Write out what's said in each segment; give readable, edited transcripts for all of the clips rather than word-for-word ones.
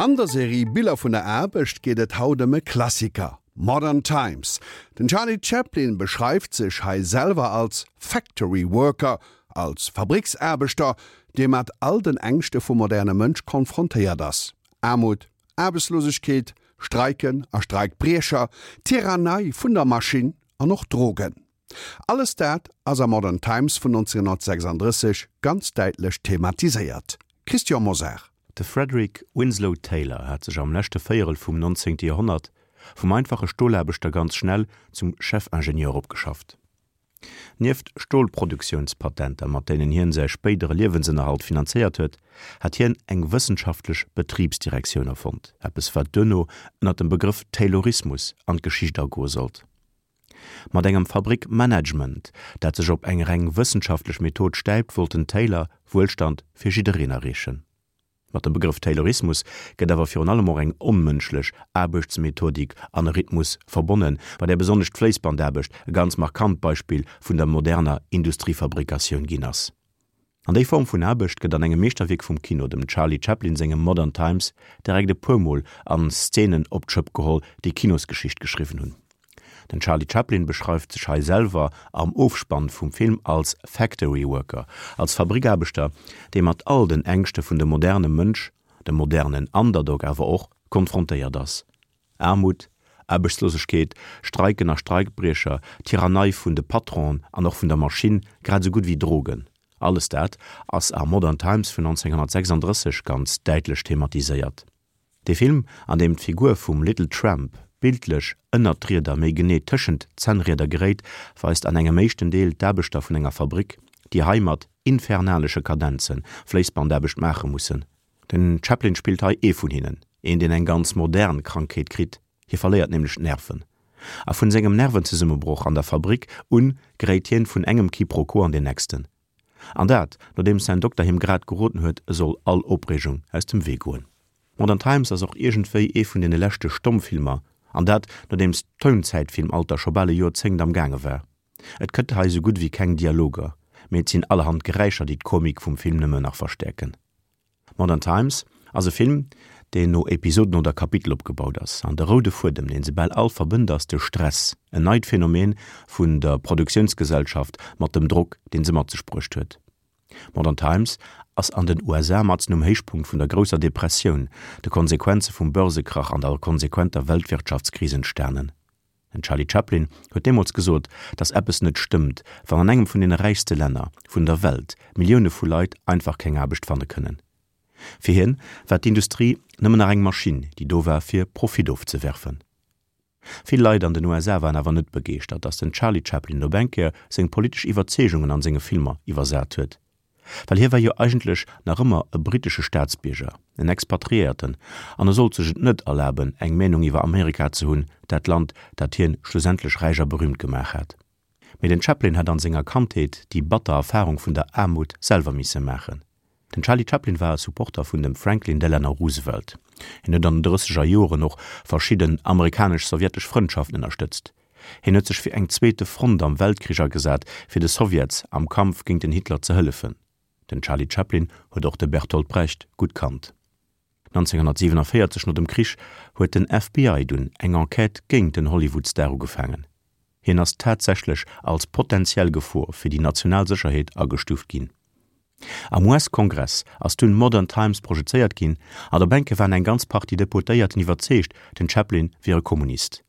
An der Serie Biller vun der Aarbecht geet et haut ëm e Klassiker, Modern Times. Den Charlie Chaplin beschreift sech hei selwer als Factory Worker, als Fabricksaarbechter, dee mat all den Ängschte vum moderne Mënsch konfrontéiert ass, Aarmut, Aarbechtslosegkeet, Streiken a Streikbriecher, Tyrannei vun der Maschinn an och Drogen. Alles dat ass a Modern Times vun 1936 ganz däitlech thematiséiert. Christian Mosar. De Frederick Winslow Taylor hat sech am leschte Véierel vum 19. Joerhonnert vum einfache Stolaarbechter ganz schnell zum Chefingenieur opgeschafft. Nieft Stolproduktiounspatenter, mat deenen hien säi spéidere Liewensënnerhalt finanzéiert huet, hat hien eng wëssenschaftlech Betribsdirektioun erfonnt, eppes wat duerno ënner dem Begrëff Taylorismus an d'Geschicht agoe sollt. Mat engem Fabrickmanagement, dat sech op eng reng wëssenschaftlech Method stäipt, wollt den Taylor Wuelstand fir jiddereen erreechen. Mat dem Begrëff Taylorismus gëtt awer virun allem och eng onmënschlech Aarbechtsmethodik an e Rhythmus verbonnen, bei där besonnesch d'Fléissbandaarbecht e ganz markant Beispill vun der moderner Industriefabrikatioun ginn ass. An déi Form vun Aarbecht gëtt an engem Meeschterwierk vum Kino, dem Charlie Chaplin sengem Modern Times, direkt e puer Mol an Szenen op d'Schëpp geholl, déi Kinosgeschicht geschriwwen hunn. Den Charlie Chaplin beschreift sech hei selwer am Ofspann vum Film als Factory Worker, als Fabrikaarbechter, dee mat all den Ängschte vun dem moderne Mënsch, dem modernen Underdog awer och, konfrontéiert ass. Aarmut, Aarbechtslosegkeet, Streiken a Streikbriecher, Tyrannei vun de Patronen an och vun der Maschinn, grad esou gutt wéi Drogen, alles dat ass a Modern Times vun 1936 ganz däitlech thematiséiert. Dee Film, an deem d'Figur vum Little Tramp bildlech ënnert d'Rieder, méi genee tëschent d'Zännrieder geréit, weist an engem éischten Deel d'Aarbechter vun enger Fabrick, déi hei mat infernalesche Kadenze Fléissbandaarbecht maache mussen. Den Chaplin spillt hei ee vun hinnen, een deen eng ganz modern Krankheet kritt, hie verléiert nämlech d'Nerven. A vun sengem Nervenzesummebroch an der Fabrik un geréit hien vun engem Quiproquo an deen nächsten. An dat nodeems säin Dokter him grad geroden huet, e soll all Opreegung aus dem Wee goen. Modern Times ass och iergendwéi ee vun deene leschte Stommfilmer, an dat nodeems d'Tounzäitfilmalter scho bal e Joerzéngt am gaange war. Et gëtt hei sou gutt wéi keng Dialoger, mee et sinn allerhand Geräischer déi d'Komik vum Film nëmme nach verstäerken. Modern Times ass e Film, deen no Episoden oder Kapitel opgebaut ass. An de roude Fuedem, deen se bal all verbënnt, ass de Stress, en neit Phänomen vun der Produktiounsgesellschaft mat dem Drock, deen se mat sech bruecht huet. Modern Times ass an den USA matzen um Héichpunkt vun der grousser Depressioun, de Konsequenze vum Börsekrach an der konsequenter Weltwirtschaftskris entstanen. Den Charlie Chaplin huet deemools gesot, datt eppes net stëmmt, wann an engem vun deene räichste Länner vun der Welt Millioune vu Leit einfach keng Aarbecht fanne kënnen. Fir hien war d'Industrie nëmmen nach eng Maschinn, déi do war fir Profit ofzewerfen. Vill Leit an den USA waren awer net begeeschtert, datt den Charlie Chaplin op eng Kéier seng politesch Iwwerzeegungen an senge Filmer iwwersat huet. Well hie war jo eigentlech nach ëmmer e brittesche Staatsbierger, en Expatriéierten, an e sollt sech et net erlaben, eng Meenung iwwer Amerika ze hunn, dat Land, dat hien schlussendlech räich a berüümt gemaach hat. Mee den Chaplin hat an senger Kandheet déi batter Erfarung vun der Aarmut selwer misse maachen. Den Charlie Chaplin war e Supporter vun dem Franklin Delano Roosevelt. Hien huet an den drësseger Joren och verschidden amerikanesch-sowjetesch Frëndschaften ënnerstëtzt. Hien huet sech fir eng zweete Front am Weltkrich agesat, fir de Sowjets am Kampf géint den Hitler ze hëllefen. Den Charlie Chaplin huet och de Bertolt Brecht gutt kannt. 1947, no dem Krich, huet den FBI dunn eng Enquête géint den Hollywood-Star ugefaangen. Hien ass tatsächlech als potentiell Gefor fir déi national Sécherheet agestuuft ginn. Am US-Kongress ass dunn Modern Times projezéiert ginn an op enke waren eng ganz Partie Deputéierten iwwerzeegt, den Chaplin wier e Kommunist.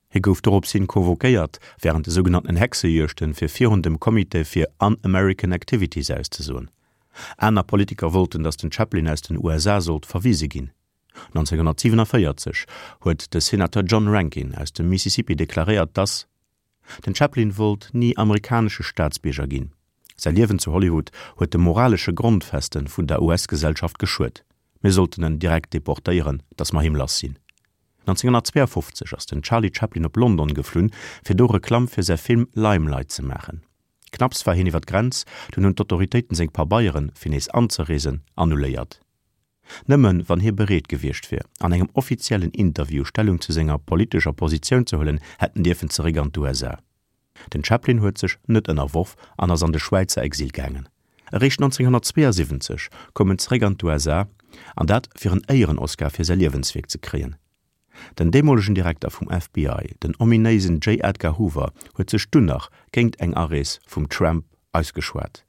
Hie gouf dorops hin convoquéiert wärend de sougenannten Hexejuegten, fir virun dem Comité fir Un-American Activities auszesoen. Aner Politiker wollten, datt den Chaplin aus den USA sollt verwise ginn. 1947 huet de Senateur John Rankin aus dem Mississippi deklaréiert, datt den Chaplin wollt ni amerikanesche Staatsbierger ginn. Säi Liewen zu Hollywood huet de moralesche Grondfeste vun der US-Gesellschaft geschuet. Mir sollten en direkt deportéieren, datt mer him lass sinn. 1952 ass den Charlie Chaplin op London geflunn, fir do Reklamm fir säi Film Limelight ze maachen. Knapps war hien iwwer d'Grenz, dunn hunn d'Autoritéiten seng Pabeieren, fir nees anzereesen, annuléiert. Nëmmen wann hie bereet gewiescht wier, an engem offiziellen Interview Stellung zu senger politescher Positioun ze huelen, hätt en dierfen zeréck an d'USA. Den Chaplin huet sech net ënnerworf an ass an de Schwäizer Exil gaangen. Eréischt 1972 koum en zeréck an d'USA, an dat fir en Éieren-Oscar fir säi Liewenswierk ze kréien. Den deemolegen Direkter vum FBI, den ominéisen J. Edgar Hoover, huet sech dunn nach géingt eng Arees vum Tramp ausgeschwat.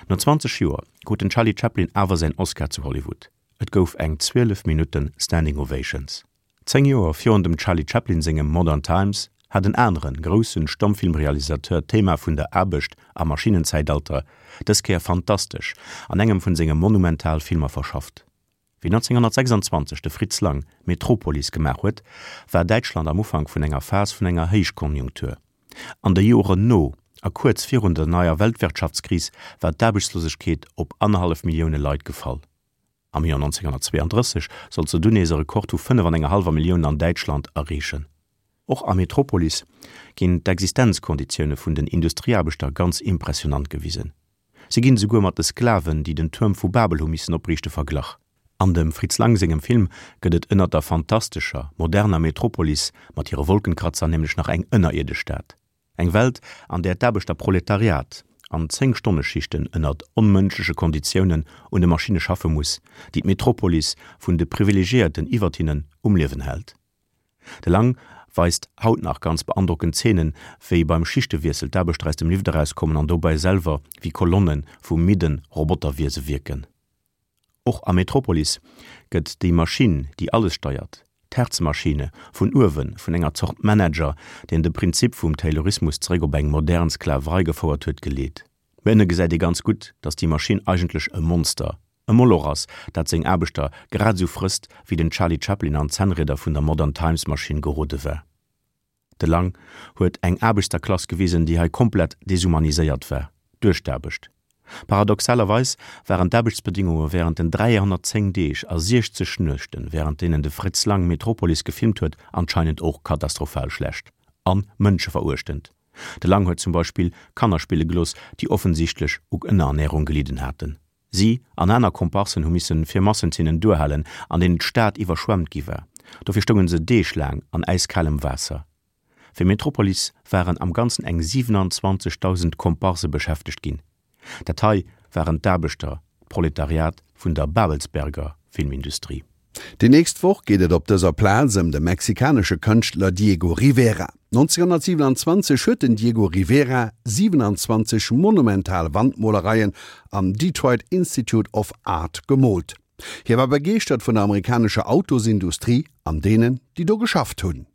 No 20 Joer krut den Charlie Chaplin awer säin Oscar zu Hollywood. Et gouf eng 12 Minutten Standing Ovations. 10 Joer virun dem Charlie Chaplin sengem Modern Times hat en aneren groussen Stommfilmrealisateur d'Thema vun der Aarbecht am Maschinnenzäitalter dës Kéier fantastesch an engem vun senge monumental Filmer verschafft. Wéi 1926 de Fritz Lang Metropolis gemaach huet, war Däitschland am Ufank vun enger Phas vun enger Héichkonjunktur. An de Joren no a kuerz virun der neier Weltwirtschaftskris war d'Aarbechtslosegkeet op annerhallef Millioune Leit gefall. Am Joer 1932 sollt se dunn nees e Rekord vu 5 an enger hallwer Millioun an Däitschland erreechen. Och a Metropolis ginn d'Existenzkonditioune vun den Industrieaarbechter ganz impressionant gewisen. Si ginn esouguer mat de Sklaven, déi den Tuerm vu Babel hu missen opriichte, verglach. An dem Fritz Lang sengem Film gëtt et ënnert der fantastescher, moderner Metropolis mat hire Wolkenkratzer nämlech nach eng ënnerierdesch Stad. Eng Welt, an där d'Aarbechterproletariat an Zéng-Stonne-Schichten ënnert onmënschleche Konditiounen un de Maschinne schaffe muss, déi d'Metropolis vun de Privilegiéierten iwwert hinnen um Liewen hält. De Lang weist haut nach ganz beandrockend Zeenen, wéi beim Schichtewiessel d'Aarbechter aus dem Lift erauskommen an dobäi selwer wéi Kolonne vu midden Roboterwiese wierken. Och a Metropolis gëtt déi Maschinn, déi alles steiert, d'Hertzmaschine, vun uewe vun enger Zort Manager, deen de Prinzip vum Taylorismus zeréck op eng modern Sklaverei gefouert huet, geleet. Mee ënne gesäit ee ganz gutt, datt déi Maschinn eigentlech e Monster, e Moloch ass, dat seng Aarbechter grad esou frësst, wéi den Charlie Chaplin an d'Zännrieder vun der Modern Times Maschinn gerode war. De Lang huet eng Aarbechterklass gewisen, déi hei komplett deshumaniséiert war duerch d'Aarbecht. Paradoxalerweis waren d'Aarbechtsbedingunge wärend den 310 Deeg a 60 Nuechten, wärend deenen de Fritz Lang Metropolis gefilmt huet, anscheinend och katastrophal schlecht an mënscheveruechtend. De Lang huet zum Beispill Kanner spille gelooss, déi offensichtlech u Ënnerernärung gelidden haten. Si an aner Komparsen hu missen fir Massenzeenen duerhalen, an deenen d'Stad iwwerschwemmt gi war. Dofir stounge se deeglaang an äiskalem Waasser. Fir Metropolis waren am Ganzen eng 27.000 Komparse beschäftegt ginn. Dat hei waren d'Aarbechter, d'Proletariat vun der Babelsberger Filmindustrie. Déi nächst Woch geet et op dëser Plaz ëm de mexikanesche Kënschtler Diego Rivera. 1927 huet den Diego Rivera 27 monumental Wandmolereien am Detroit Institute of Art gemoolt. Hie war begeeschtert vun der amerikanescher Autosindustrie an deenen, déi do geschafft hunn.